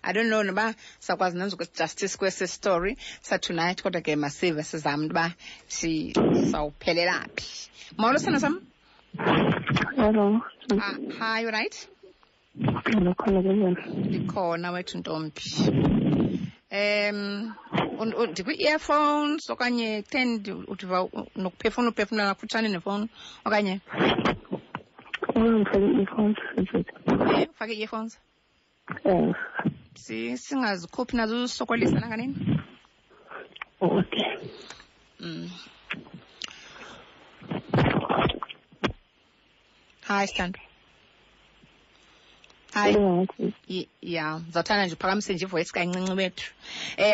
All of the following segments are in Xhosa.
I don't know noba sakwazi nenza justice kwesi story sa-tonight, kodwa ke masive sizame into yoba sawuphelela phi. Molo, sithando sam. Hello. Ah, hi, you right? Ndikhona kunjani? Ndikhona wethu ntombi. Ndikwi-earphones okanye kutheni udiva nokuphefumla uphefumla kufutshane nefowuni okanye? Ndifake i-earphones. Ufake i-earphones? Singazikhuphi nazo usokolisa nanganini? Okay. Hi, Sithando. Hi. Ya, ndizawuthanda nje uphakamise nje ivoice kancinci wethu.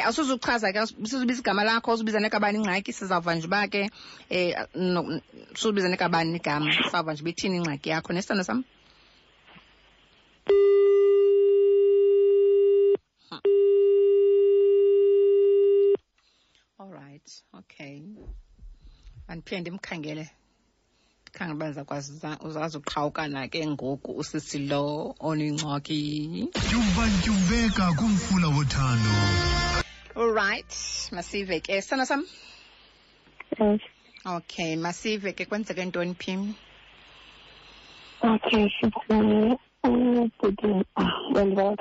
Awusuzuchaza ke, usuzubiza igama lakho, uzubiza nekabani ingxaki, sizawuva nje uba ke suzubiza nekabani igama, sizawuva nje uba ithini ingxaki yakho. Nesithando sam? All right, okay. Andiphinde ndimkhangele. Khangela uba ndizakwazi uzazuqhawukana ke ngoku usisi lo onengxaki. Tyumba-tyumbeka kumfula wothando. All right, masive ke. Sithando sam? Yes. Okay, masive ke kwenzeke ntoni phi? Okay, sithi ubhuti wendibona.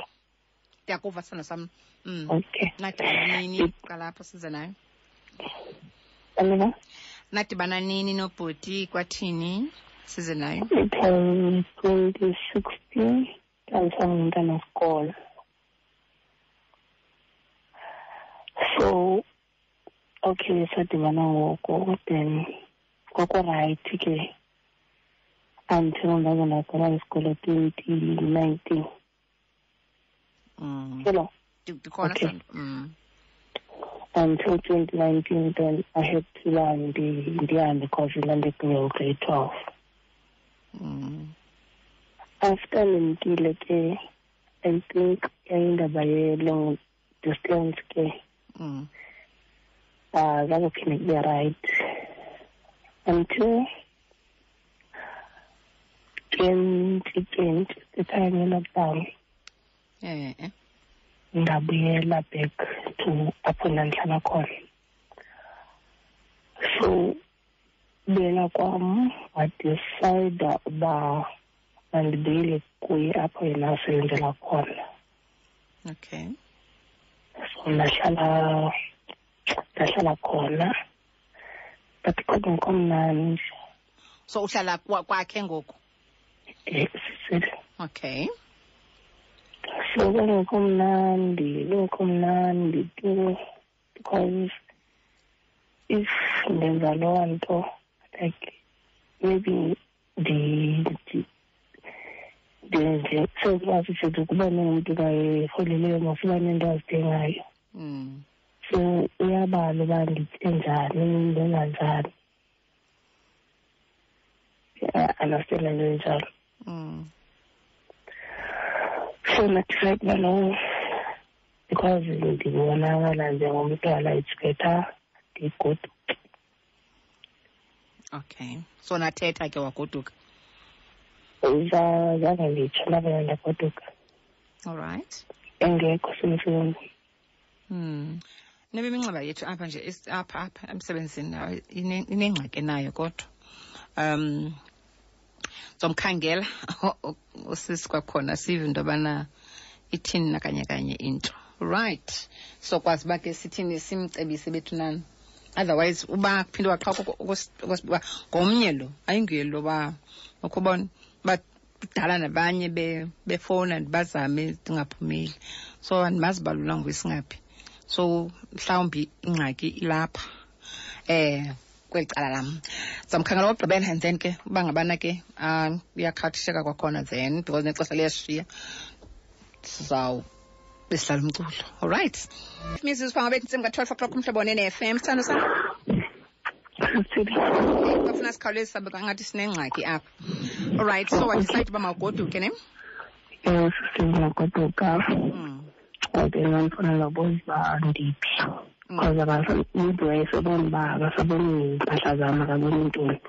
Ndiyakuva sithando sam. Okay. Nadibana nini? Qala apho size nayo. Alina? Nadibana nini nobhuti kwathini? Size nayo. It was 2016, ndandisangumntana wesikolo. So, okay, sadibana ngoko, then kwakurayithi ke until ndaze ndagqiba isikolo 2019. Hello. Ndikhona, Okay. Sandra. Until 2019, then I had to learn the because we landed in grade 12. After ndimkile ke, I think yayindaba ye-long distance ke. Zange kube right until 2020, the time ye-lockdown. Ndabuyela back to apho ndandihlala khona. So buyela kwam, wadecide uba mandibuyele kuye apho yena asebenzela khona. Okay. So ndahlala khona, but kodwa ngikho mnandi. So uhlala kwakhe ngoku? Sisile. Okay. So kungekho mnandi, kungekho mnandi tu, because if ndenza loo nto, like maybe ndenze sezikwazi futhi ukuba nomntu kayeholeleyo masiba nento azidingayo. So uyabala uba nditye njani, ndenza njani. Yeah, understand le nto enjalo. So ndadecide uba no, because ndibonakala njengomntwana, it's better ndigoduke. Okay. So nathetha ke wagoduka? Zange nditsho, ndavele ndagoduka. All right. Engekho semsebenzini. Nebe iminxeba yethu apha nje, apha emsebenzini, hayi, inengxaki nayo kodwa. Zomkhangela usisi kwakhona sive into yobana ithini nakanye kanye into. Right. So kwazi uba ke sithini simcebise bethu nani. Otherwise uba kuphinde waqhawuka uba ngomnye lo, ayinguye lo ba ukubona uba kudala nabanye befowuna ndibazame ndingaphumeli. So andimazi uba lula nguye singaphi. So mhlawumbi ingxaki ilapha. Kweli cala lam. Sizamkhangela okokugqibela and then ke uba ngabana ke uyakhathisheka kwakhona then because nexesha liyashiya. Sizawube sidlala umculo. All right. Mizuzu phambi kwentsimbi ka-12 o'clock umhlobo one-F M. Sithando sam? Bafuna sikhawuleze sabe ngathi sinengxaki apha. All right, so wadecide uba mawugoduke, ne? Ewe, sisi, ndingagoduka. Okay, ndandifuna nobuza uba ndiphi. Because umntu wayesebona uba akasaboni iimpahla zam, akaboni ntoni.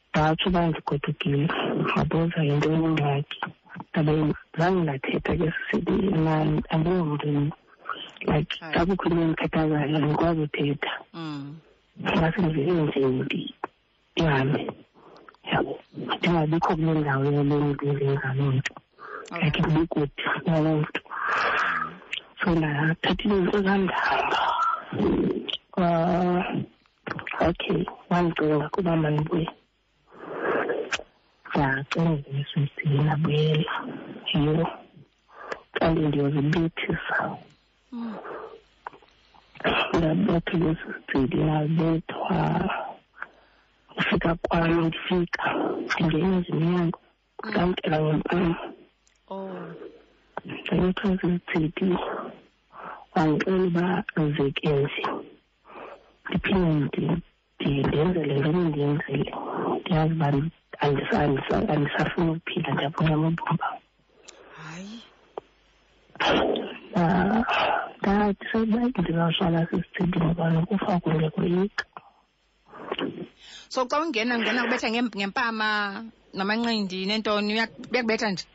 Ndatsho uba ndigodukile, wabuza yintoni ingxaki. Ndabe zange ndathetha ke sisithi mna andingomntu, like, xa kukho into endikhathazayo andikwazi uthetha. Ngase ndivele nje ndihambe, yabo, ndingabikho kule ndawo yale mntu ndenza loo nto, like ndibekude naloo mntu. So ndathatha izinto zam ndahamba. Okay, wandicinga kuba mandibuye. Ndacinga esisithini, ndabuyela. Yho, kanti ndiyozibethisa. Ndabethwa ngesisithili, ndabethwa. Ufika kwam, ndifika ndingena nje emnyango, ndamkela ngempama. Ndabethwa sisithili, wandixela uba zeke nje ndiphinde ndenze le nto bendiyenzile. Ndiyazi uba andisafuni ukuphila, ndiyabuncama ubomi bam. Hayi. Ndathi sekuba ndizawuhlala sisithili ngoba nokufa kundiyakoyika. So xa ungena, ungena kubetha ngempama namanqindi nentoni, uyakubetha nje?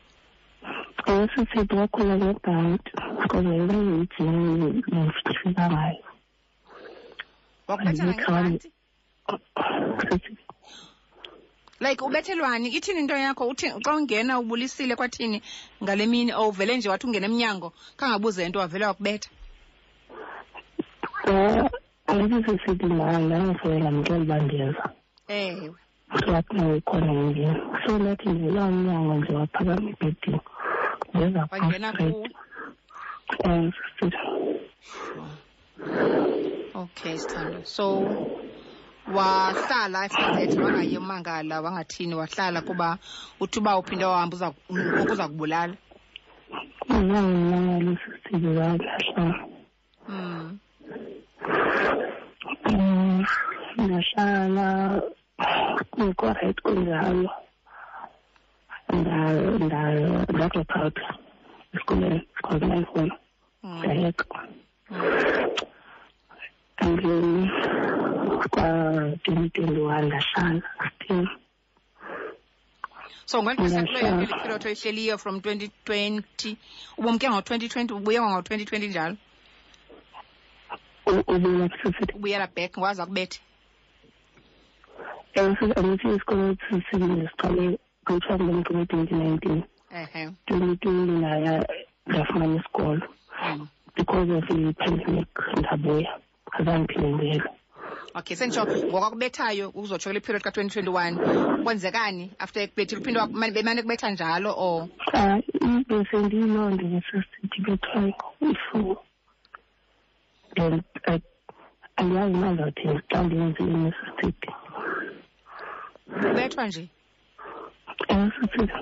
Sisithi wakhula ngebhanti because yayiyijini ndifika ngayo. Wakubetha ngebhanti? Like ubethelwani? Ithini into yakho? Uthi xa ungena ubulisile kwathini ngale mini, or uvele nje wathi ungena emnyango khangabuze nto wavele wakubetha? Andithi sisithi ndangifowela ndamxelela uba ndiyeza. Ewe. Wathi ukhona endlini. So ndathi ndivula umnyango nje waphakama ebhedini. Ndeza Wangena kuwe? Sisithi. Okay, sithando. So wahlala after that, wangayi umangala, wangathini, wahlala kuba uthi uba uphinde wahamba ngoku uza kubulala? Zange ndimangale sisithi, ndahlala. Ndahlala kungekho right kunjalo. Nda-drop out esikolweni because ndandifuna. Ndayeka. And then kwa-2021 ndahlala still. So ngeli xesha kulo yonke le period oyihleliyo from 2020, ubumke ngo-2020, ubuye ngo-2020 njalo? Ubuyela kusisithi. Ubuyela back, waza kubethe? Ewe, andithi isikolo sisibini siqale kuthiwa ngumntu ngo-2019. 2020 ndaya ndafumana isikolo. Because of i-pandemic ndabuya, azange ndiphinde ndibuyele. Okay, senditsho ngokwakubethayo uzotsho kule period ka-2021, kwenzekani after ekubethile? Uphinde bemane kubetha njalo or? Bese ndiyiloo nto ngesisithi bethwayo ifu. Then andiyazi uba ndizawuthini xa ndenze inesisithi. Ubethwa nje? Ewe, sisithi.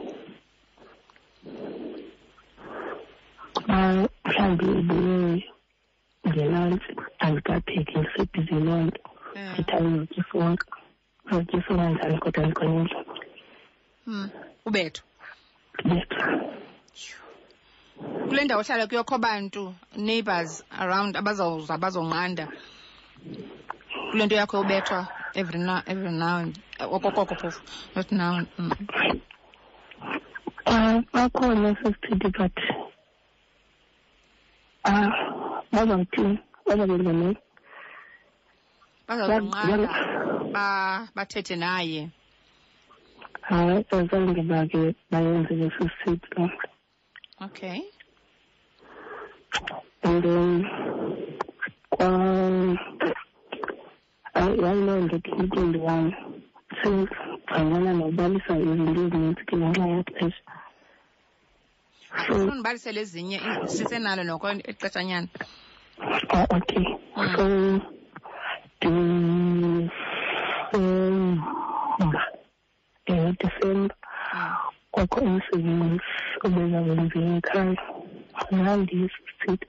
Mhlawumbi ubuye ngelantshi, andikapheki, ndisebhizi loo nto. Ndithi andizotya isonka. Ndizotya isonka njani kodwa ndikhona endlini. Ubethwa? Ndibethwa. Kule ndawo ohlala kuyo kho bantu, neighbors around abazawuza bazonqanda kule nto yakho yobethwa every now, every now and okokoko phofu, not now. Bakhona sesithithi but bazawuthini, bazakwenza ntoni? Bazawunqanda bathethe naye. Hayi, azange bake bayenze leso sithithi loo nto. Okay. And then yayiloo nto 2021 since ndangena nokubalisa izinto ezininzi ke ngenxa yexesha. So Andifuni ndibalisele ezinye, sisenalo noko ixeshanyana. Okay. So Disemba, Disemba kwakho umsebenzi obeza kwenziwa ekhaya. Ndandiyisisithi.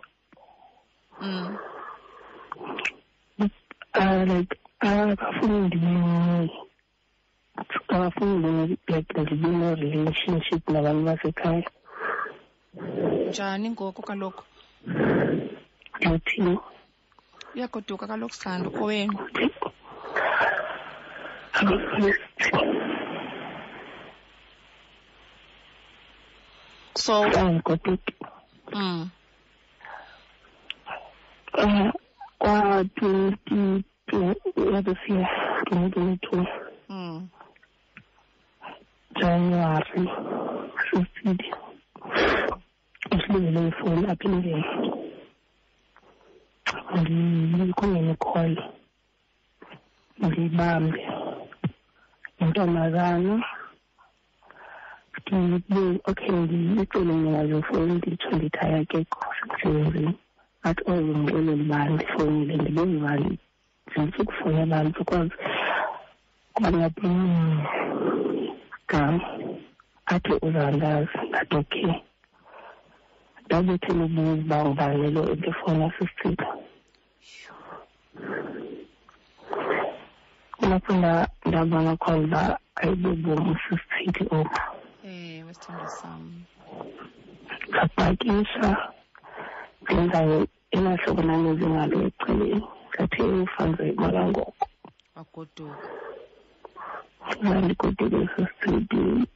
Like, akafuni ndibe, akafuni ndibe, like, ndibe ne-relationship nabantu basekhaya. Njani ngoku kaloku? Ndithini? Uyagoduka kaloku, Sithando, kowenu. So Andigoduki. Kwa-22 this year, 2022. January 15. Usilibele ifowuni apha endlini. Ndikungene call. Ndiyibambe. Intombazana. Okay, ndiyicele mna fowuni, nditsho ndithi hayi akekho semsebenzini. Athi oye ndixelele uba ndifowunile, ndibuze uba ndifuna ukufowunela abantu because kwangathi gama. Athi uzandazi, ndathi okay. Ndabethela ubuza uba ngubani lo ebefowuna sisithixo. Kulapho ndabona khona uba ayibobomi sisithixo obu. Ewe, sithandwa sam. Ndapakisha ndenza elaa ndandenze ngalo ecaleni, ndathi ufanze imali ngoko. Wagoduka. Ndandigoduke sisithixo,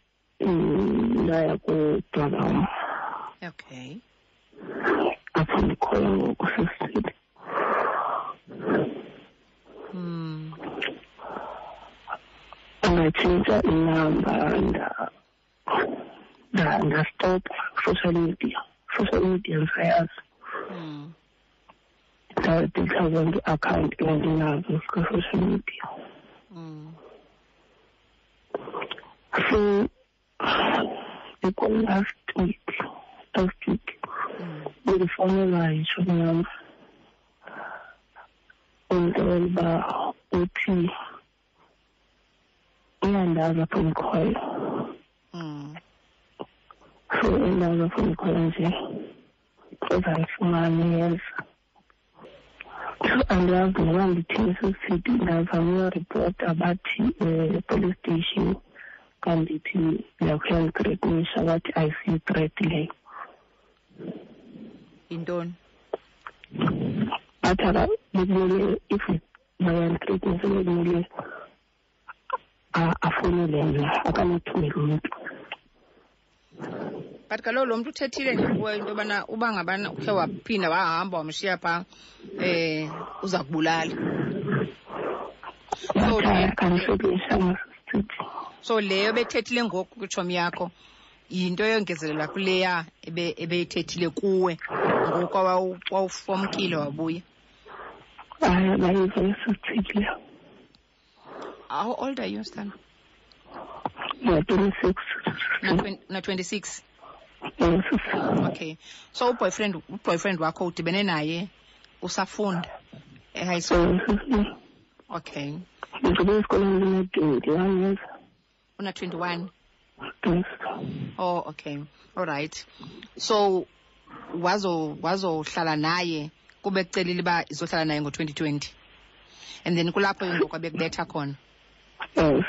ndaya kubrother wam. Okay. Apho ndikhoyo ngoku sisithixo. Ndatshintsha inamba, ndastopha social media. Social media ndisayazi. Ndadelitha zonke ii-akhawunti endinazo zika-social media. So last week bendifowunelwa yitshomi yam, undixelela uba uthi uyandazi apho ndikhoyo. So endazi apho ndikhoyo nje uzandifumana uyeza. So andiyazi noba ndithini sisithi. Ndazama uyoripota, bathi police station xa ndithi ndiyakuyandithreatenisha, bathi ayisiyi-threat leyo. Yintoni? Bathi bekumele if bayandithreatenisa bekumele afowunele mna, akanothumela umntu. But kaloku lo mntu uthethile nje kuwe into yobana uba ngabana ukhe waphinda wahamba wamshiya phaa, uza kubulala. So leyo bethethile ngoku kwitshomi yakho yinto eyongezelela kuleya ebeyithethile kuwe ngoku wawufomkile wabuya. Hayi, bayiva esisithile. How old are you, Stan? Na-26. Na-26? Yes. Okay. So uboyfriend wakho udibene naye usafunda e-high school? Yes. Okay. Ndigqibe esikolweni ndina-21 years. Una-21? Yes. Oh, okay. All right. So wazohlala naye kube kucelile uba izohlala naye ngo-2020. And then kulapho ke ngoku abekubetha khona. Yes.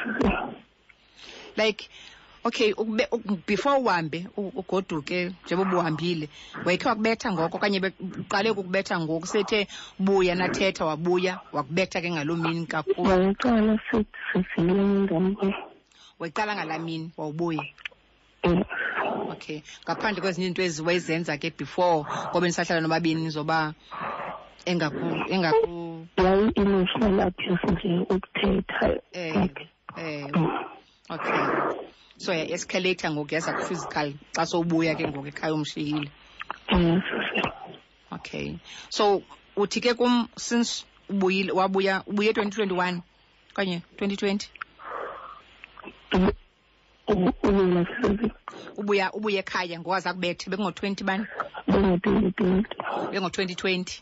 Like, okay, before uhambe ugoduke njengoba ubuhambile, wayekhe wakubetha ngoko okanye uqale ukukubetha ngoku sethe buya nathetha wabuya wakubetha ke ngaloo mini kakhulu? Wayeqala sesivile ngam. Wayeqala ngalaa mini wawubuya? Yes. Okay. Ngaphandle kwezinye iinto ezi wayezenza ke before ngoba nisahlala nobabini zoba engaku Yayi-emotional abuse nje ukuthetha. Okay. So ya-escalate ngoku yaza ku-physical xa sowubuya ke ngoku ekhaya umshiyile. Yes. Okay. So uthi ke kum since ubuyile wabuya ubuye 2021 okanye 2020? Ubuya ubuye ekhaya ngowaza kubethe bekungo-20 bani? Bengo-2020. Bengo-2020.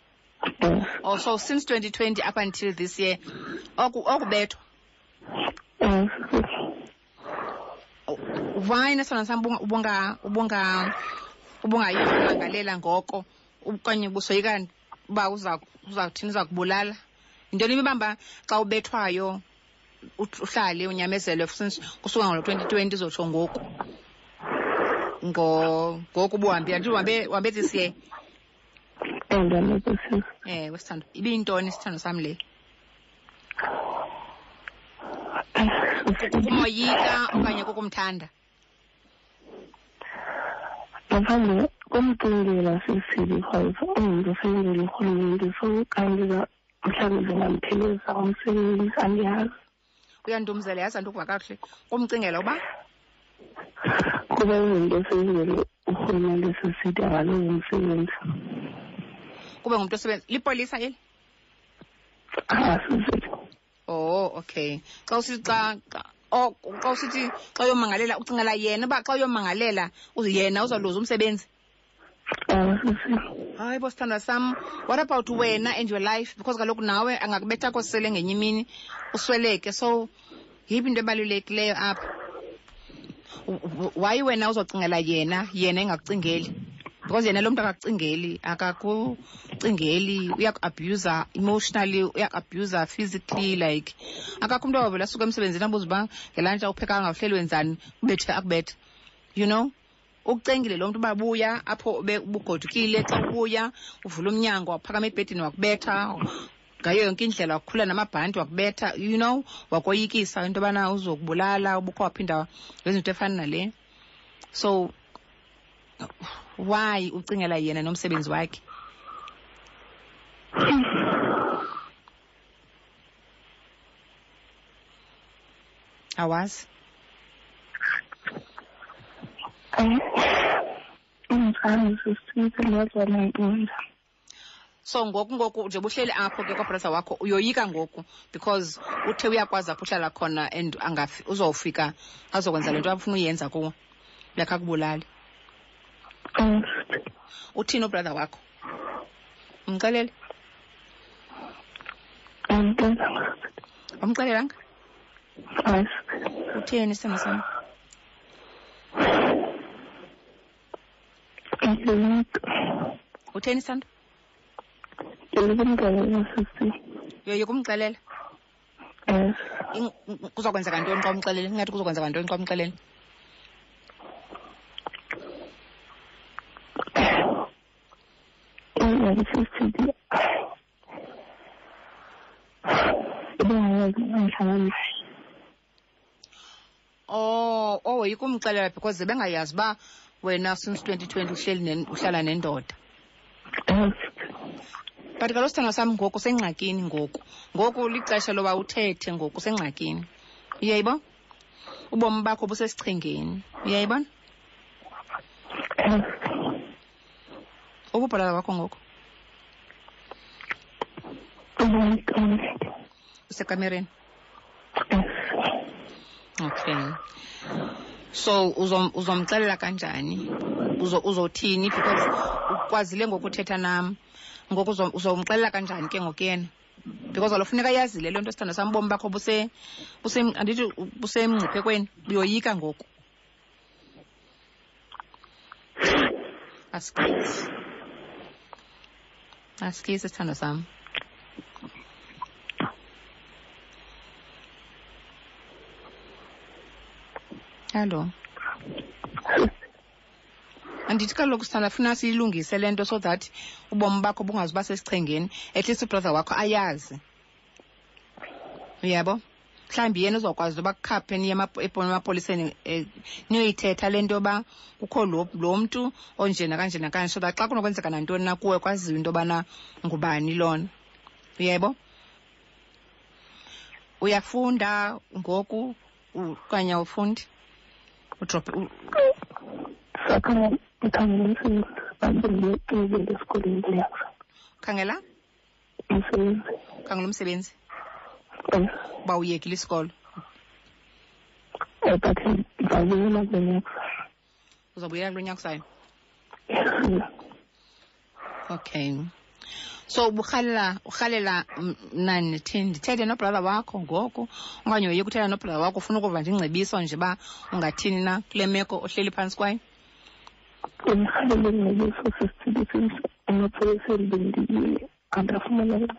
Yes. Oh, so since 2020 up until this year okubethwa. Yes. Why nesona sam ubungayimangalela ngoko okanye ubusoyika uba uzawuthini uza kubulala? Yintoni ibibamba xa ubethwayo uhlale unyamezele since kusuka ngo-2020 uzotsho ngoku? Ngoku ubuhambile, andithi uhambe this year? Ewe, sithando. Ibiyintoni isithando sam le? Kukumoyika okanye kukumthanda? Ngaphandle komcingela sisi because ungumntu osebenzela urhulumente, so kanti mhlawumbi zingamphelisa umsebenzi, andiyazi. Uyandumzela, yazi andikuva kakuhle. Kumcingela uba? Kuba ungumntu osebenzela urhulumente sisithi akalozi umsebenzi. Kube ngumntu osebenza lipolisa eli? Ah, sisithi. Oh, okay. Xa usithi xa oh, xa usithi xa uyomangalela ucingela yena uba xa uyomangalela yena uzawuluza umsebenzi? Hayi bo, sithandwa sam, what about wena and your life? Because kaloku nawe angakubetha kosele ngenye imini usweleke. So yiphi into ebalulekileyo apha? Why wena uzocingela yena, yena engakucingeli? Because yena lo mntu akakucingeli, akakucingeli, uyaku-abuser emotionally, uyaku-abuser physically, like akakho umntu awavele asuke emsebenzini abuze uba ngelantshi awuphekanga, uhleli wenzani, ubethe akubethe, you know? Ukucengile lo mntu uba buya apho ubugodukile, xa ubuya uvula umnyango waphakama ebhedini wakubetha ngayo yonke indlela, wakukhula namabhanti wakubetha, you know, wakoyikisa into yobana uzokubulala, ubukho waphinda wenza into efana nale. So why ucingela yena nomsebenzi wakhe? Awazi? So ngoku nje buhleli apho ke kwabrother wakho, uyoyika ngoku because uthe uyakwazi apho uhlala khona and angafi, uzofika azokwenza le nto afuna uyenza kuwe, like akubulali. Uthini ubrother wakho? Umxelele? Umxelelanga? Utheni isithando sam? Utheni isithando? Ndiyoyika sisi. Uyoyika umxelela? Yes. Kuzokwenzeka ntoni xa umxelele? Ingathi kuzokwenzeka ntoni xa umxelele? Oh, woyika umxelela because bengayazi uba wena since 2020 uhleli uhlala nendoda. But kaloku sithandwa sam ngoku usengxakini ngoku. Ngoku lixesha loba uthethe, ngoku usengxakini. Uyayibona? Ubomi bakho busesichengeni. Uyayibona? Ububhalala wakho ngoku? Usekamereni? Okay. So uzomxelela kanjani? Uzothini? Because ukwazile ngokuthetha nam. Ngoku uzomxelela kanjani ke ngoku yena? Because kaloku funeka yazile le nto, sithandwa sam, ubomi bakho andithi busemngciphekweni, uyoyika ngoku. Asikisi. Asikisi, sithandwa sam. Hallo. Andithi kaloku sithanda funa siyilungise le nto so that ubomi bakho bungazuba sesichengeni, at least ubrother wakho ayazi. Uyabo? Mhlawumbi yena uzokwazi uba kukhaphe niye emapoliseni, niyoyithetha le nto yoba kukho lo mntu onje nakanje nakanje, so that xa kunokwenzeka nantoni na kuwe kwaziwe into yobana ngubani lona. Uyebo? Uyafunda ngoku okanye awufundi? Udrophe Ukhangela? Umsebenzi. Ukhangela umsebenzi? Uba uyekile isikolo? But ndizawubuyela kulo nyaka. Uzawubuyela kulo nyaka uzayo? Okay. So urhalela mna ndithini, ndithethe nobrother wakho ngoku okanye uye kuthetha nobrother wakho, ufuna ukuva nje ingcebiso nje uba ungathini na kule meko ohleli phantsi kwayo? Ndirhalela ingcebiso sisithili since emapoliseni bendiyile andafumana uncedo.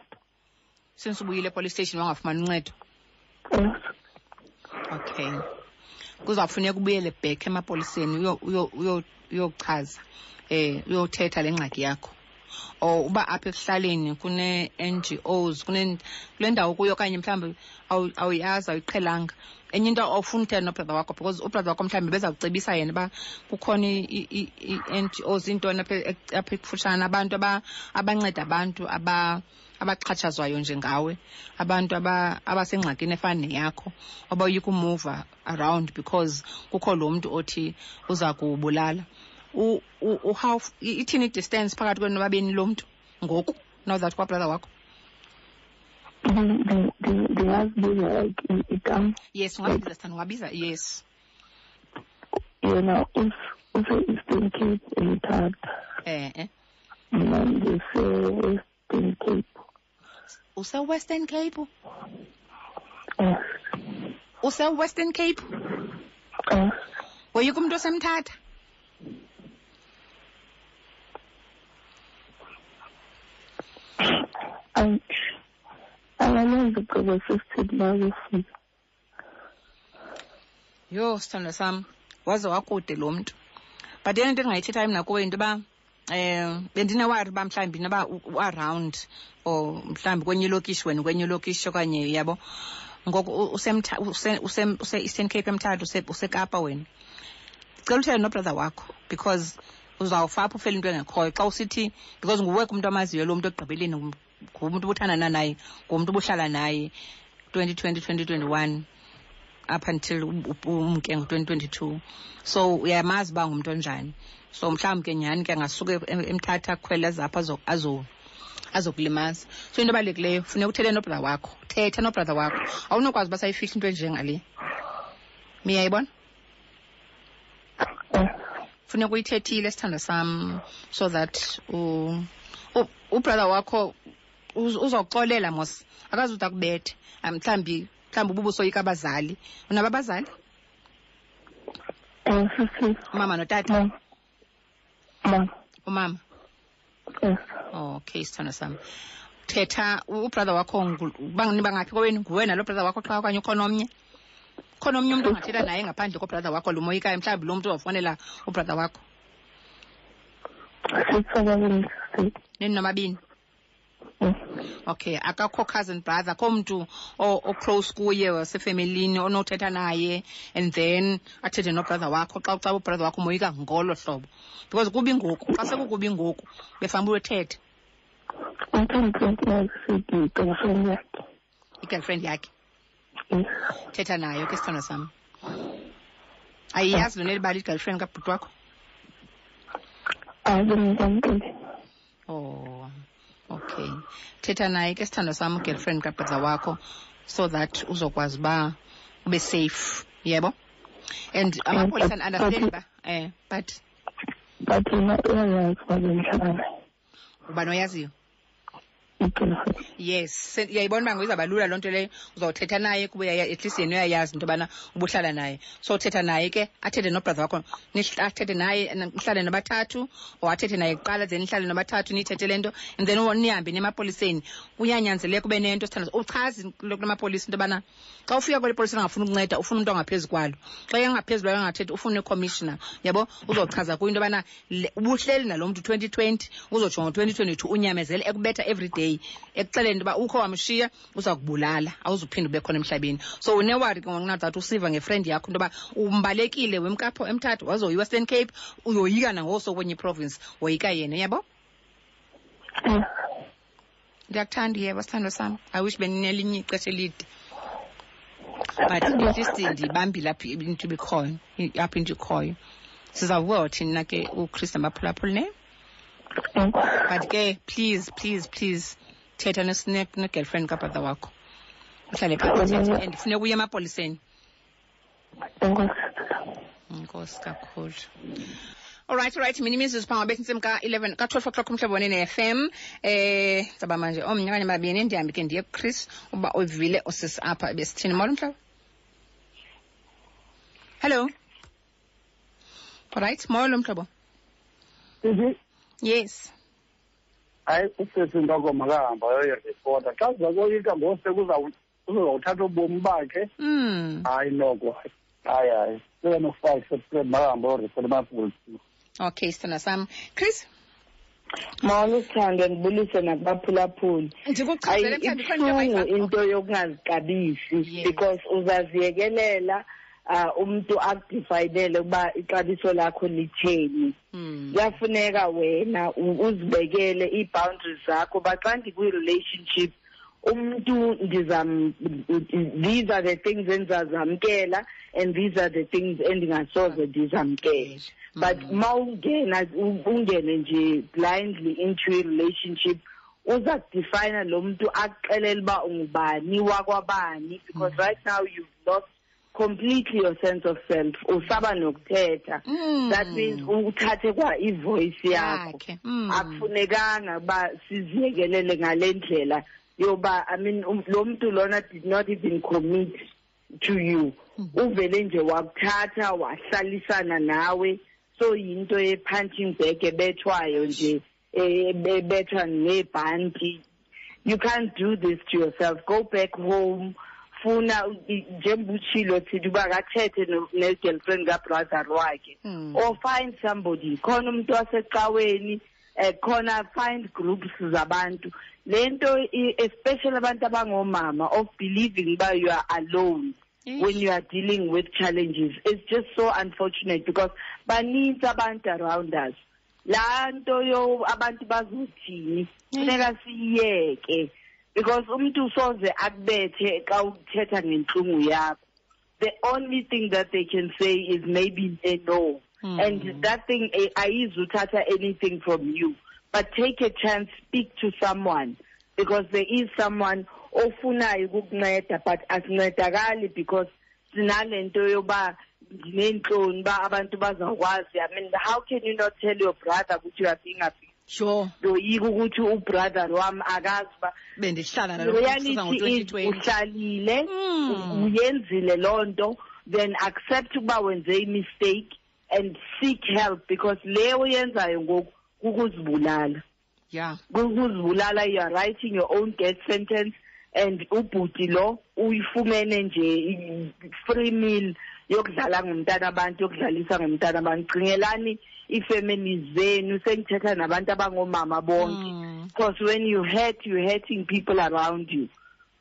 Since ubuyile epolice station wangafumani uncedo? Yes. Okay. Kuzawufuneka ubuyele back emapoliseni uyochaza, uyothetha le ngxaki yakho. Or uba apha ekuhlaleni kune-N G Os, kule ndawo kuyo okanye mhlawumbi awuyazi, awuyiqhelanga. Enye into, awufuni uthetha nobrother wakho because ubrother wakho mhlawumbi beza kucebisa yena uba kukhona ii-NGOs, iintoni apha ekufutshane, abantu abanceda abantu abaxhatshazwayo njengawe, abantu abasengxakini efana neyakho, abayoyika umuva around because kukho lo mntu othi uza kubulala. How ithini i-distance phakathi kwenu nobabini lo mntu ngoku, now that kwabrother wakho? Ndingazibiza like igama? Yes, ungabiza, sithanda, ungabiza, yes. Yena use-Eastern Cape, eMthatha. Eh. Mna ndise-Western Cape. Use-Western Cape? Yes. Use-Western Cape? Yes. Woyika umntu osemthatha? Angalenza ugqibo sisithi bazofika. Yho, sithandwa sam, waze wakude lo mntu. But eyona nto endingayithethayo mna kuwe yinto yoba bendinewari uba mhlawumbi noba u-around or mhlawumbi kwenye ilokishi, wena kwenye ilokishi okanye, yabo. Ngoku use-Eastern Cape eMthatha, useKapa wena. Ndicela uthethe nobrother wakho because uzawufa apho ufele into engekhoyo xa usithi, because nguwe kumntu amaziyo lo mntu ekugqibeleni, ngumntu ubuthandana naye, ngumntu ubuhlala naye 2020, 2021 up until umke ngo-2022. So uyamazi uba ngumntu onjani. So mhlawumbi ke nyhani ke angasuke eMthatha akhwele apha azokulimaza. So into ebalulekileyo, funeka uthethe nobrother wakho. Thetha nobrother wakho. Awunokwazi uba sayifihla into enjengale. Miyayibona? Funeka uyithethile, sithandwa sam, so that ubrother wakho uzoxolela mos. Akazude akubethe. Mhlawumbi ububusoyika abazali. Unabo abazali? Sisi. Umama notata? Mama. Umama? Yes. Okay, sithandwa sam. Thetha ubrother wakho, bangaphi kowenu? Nguwe nalo brother wakho qha okanye ukhona omnye? Khona omnye umntu ongathetha naye ngaphandle kobrother wakho lumoyikayo, mhlawumbi lo mntu uzofonela ubrother wakho? Nini nomabini? Okay, akakho cousin brother, akho mntu o-close kuye wasefemelini onothetha naye and then athethe nobrother wakho xa ucaba ubrother wakho umoyika ngolo hlobo. Because kubi ngoku, xa sekukubi ngoku, befanele uthethe. I-girlfriend yakhe. Thetha nayo ke, sithandwa sam. Ayiyazi lona elibali i-girlfriend kabhuti wakho? Oh, okay. Thetha naye ke, sithandwa sam, girlfriend kabrother wakho, so that uzokwazi uba ube safe, yebo? And amapolisa understand ba, but But yena uyayazi uba bendihlala naye. Ubani oyaziyo? Yes, uyayibona uba ngizawuba lula loo nto leyo. Uzawuthetha naye kuba at least yena uyayazi into yobana ubuhlala naye. So uthetha naye ke, athethe nobrother wakho, athethe naye, nihlale nobathathu, or athethe naye kuqala, then nihlale nobathathu, niyithethe le nto, and then nihambe niye emapoliseni. Kuyanyanzeleka ube nento, sithandwa. Uchaze kula mapolisa into yobana xa ufika kweli polisa angafuni ukunceda, ufuna umntu ongaphezu kwalo. Xa engaphezu kwalo angathethi, ufuna i-commissioner. Yabo? Uzochaza kuyo into yobana ubuhleli nalo mntu 2020, uzotsho ngo-2022, unyamezele ekubetha every day, ekuxeleni into yoba ukho wamshiya, uza kubulala, awuzuphinde ube khona emhlabeni. So unewari ke ngoku that usiva ngefriend yakho into yoba umbalekile wemkapho eMthatha, wazoya iWestern Cape, uyoyika nangoso kwenye iprovince, woyika yena, uyabo? Ndiyakuthanda, yebo, sithandwa sam. I wish beninelinye ixesha elide. But at least ndibambile apha into ibikhoyo, apha into ikhoyo. Sizawubuka thina ke uChris nabaphulaphuli, ne? But ke please, please, please thetha ne-girlfriend kabrother wakho. Uhlale phantsi uthethe and funeka uye emapoliseni. Enkosi kakhulu. All right, all right. Mina imizuzu phambi bethi intsimbi ka-11, ka-12 o'clock umhlobo wenene FM. Saba manje omnye okanye babini, ndihambe ke ndiye kuChris uba uvile usisi apha ebesithini. Molo mhlobo. Hello. All right, molo mhlobo. Yes. Hayi, usisi Ntoko makahamba ayoyiripota. Xa siza koyika ngose uzawuthatha ubomi bakhe. Hayi noko. Hayi, hayi. 7:05 September makahamba ayoripota emapoliseni. Okay, sithanda sam. Chris? Molo sithandwa, ndibulise nakubaphulaphuli. Ndikuchazele mhlawumbi khona into Ibuhlungu into yokungazixabisi because uzaziyekelela umuntu akudefayinele ukuba ixabiso lakho litheni. Kuyafuneka wena uzibekele ii-boundaries zakho uba xa ndikwi-relationship umuntu ndizam, these are the things endizazamkela and these are the things endingasoze ndizamkele. But mawungena ungene nje blindly into a relationship, uza kudefayina lo mntu akuxelele uba ungubani wakwabani, because right now you've lost completely your sense of self. Usaba nokuthetha. That means uthathe kwa ivoice yakho. Akufunekanga uba siziyekelele ngale ndlela yoba, I mean, lo mntu lona did not even commit to you. Uvele nje wakuthatha wahlalisana nawe. So yinto ye-punching bag ebethwayo nje, ebethwa ngebhanti. You can't do this to yourself. Go back home. Funa njengoba utshilo thithi uba akathethe ne-girlfriend kabrother wakhe. Or find somebody. Khona umuntu wasecaweni, khona find groups zabantu. Le nto, especially abantu abangomama, of believing uba you are alone when you are dealing with challenges. It's just so unfortunate because baninzi abantu around us. Laa nto yo abantu bazothini, funeka siyiyeke, because umntu soze akubethe xa uthetha ngentlungu yakho. The only thing that they can say is maybe they know. And that thing, ayizuthatha anything from you. But take a chance, speak to someone, because there is someone ofunayo ukukunceda, but asincedakali because sinalento yoba ndineentloni uba abantu bazawukwazi. I mean, how can you not tell your brother ukuthi you are being abused? Ndoyika ukuthi ubrother wam akazi uba bendihlala nalo Reality mntu is ngo-2020. uhlalile, uyenzile loo nto, then accept ukuba wenze i-mistake and seek help, because le uyenzayo ngoku kukuzibulala. Kukuzibulala, you are writing your own death sentence, and ubhuti lo uyifumene nje free meal yokudlala ngomntana abantu, yokudlalisa ngomntana abantu. Cingelani ii-families zenu, sengithetha nabantu abangomama bonke. Because when you hurt, you're hurting people around you.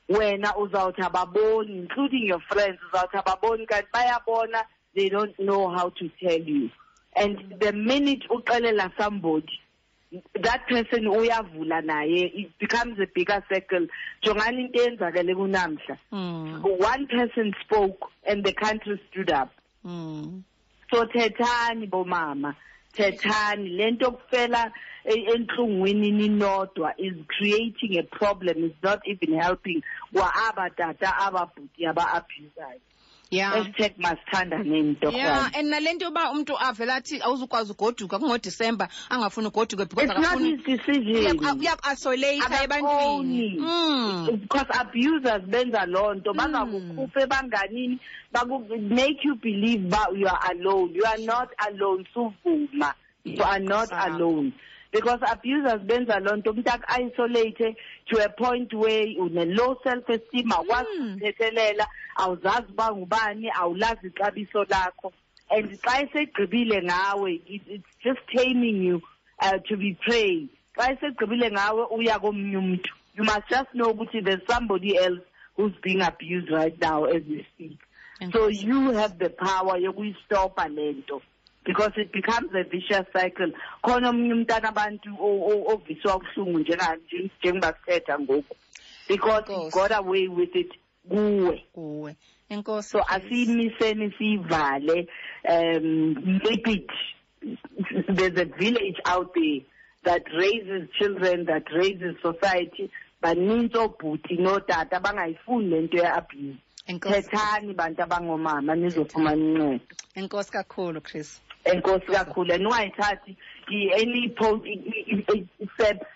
Wena uzawuthi ababoni, including your friends, uzawuthi ababoni, kanti bayabona, they don't know how to tell you. And the minute uxelela somebody, that person uyavula naye, it becomes a bigger circle. Jongani into eyenzakele kunamhla. One person spoke and the country stood up. So thethani bomama, thethani. Le nto kufela entlungwini ninodwa is creating a problem, is not even helping kwa aba tata, aba bhuti, aba abusayo. Hashtag masithandane nto kwam. And nale nto yoba umntu avele athi awuzukwazi ugoduka kungoDisemba, angafuni ugoduka because It's not akafuni his decision. Uyaku-isolate Akafuni. ebantwini. Because abusers benza loo nto, bangakukhupha ebanganini, make you believe ba you are alone. You are not alone, suvuma. You are not alone. Because abusers benza loo nto, umntu aku-isolate to a point where une-low self-esteem, awukwazi ukuzithethelela, awuzazi uba ngubani, awulazi ixabiso lakho. And xa esegqibile ngawe, it's just taming you to be prey. Xa esegqibile ngawe, uya komnye umntu. You must just know ukuthi there's somebody else who's being abused right now as we speak. Enkosi. So you have the power yokuyistopa le nto, because it becomes a vicious cycle. Khona omnye umntana abantu oviswa ubuhlungu njengoba sithetha ngoku, because he Enkosi. got away with it kuwe. Kuwe. Enkosi, So Chris. asiyimiseni siyivale, make it. There's a village out there that raises children, that raises society. Baninzi oobhuti nootata bangayifuni le nto ye-abuse. Enkosi. Thethani bantu abangomama nizofumana uncedo. Enkosi kakhulu, Chris. Enkosi kakhulu. And ungayithathi any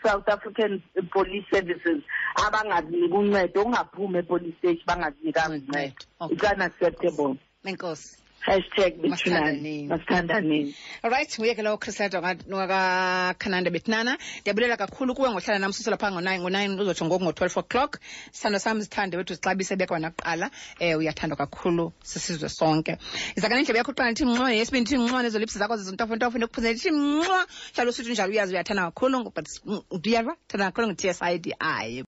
South African Police Services abangakuniki uncedo, ungaphumi epolice station bangakunikanga uncedo. Okay. It's unacceptable. Enkosi. Hashtag bethunani, masithandaneni. Alright, nguye ke lowo Chrisleta wakakhananda bethinana. Ndiyabulela kakhulu kuwe ngohlala nam susela phaa ngo-9, ngo-9 uzotsho ngoku ngo-12 o'clock. Sithando sam, zithande wethu, zixabise bekwa nakuqala. Uyathandwa kakhulu sisizwe sonke. Izaka nendlebe yakho kuqala ndithi mnxwa, yesibini ndithi mnxwa, nezo lips zakho zizintofontofo ndikuphuzele ndithi mnxwa. Hlala usithi njalo, uyazi uyathanda kakhulu, but ndiyava thanda kakhulu ngu-T S I D I.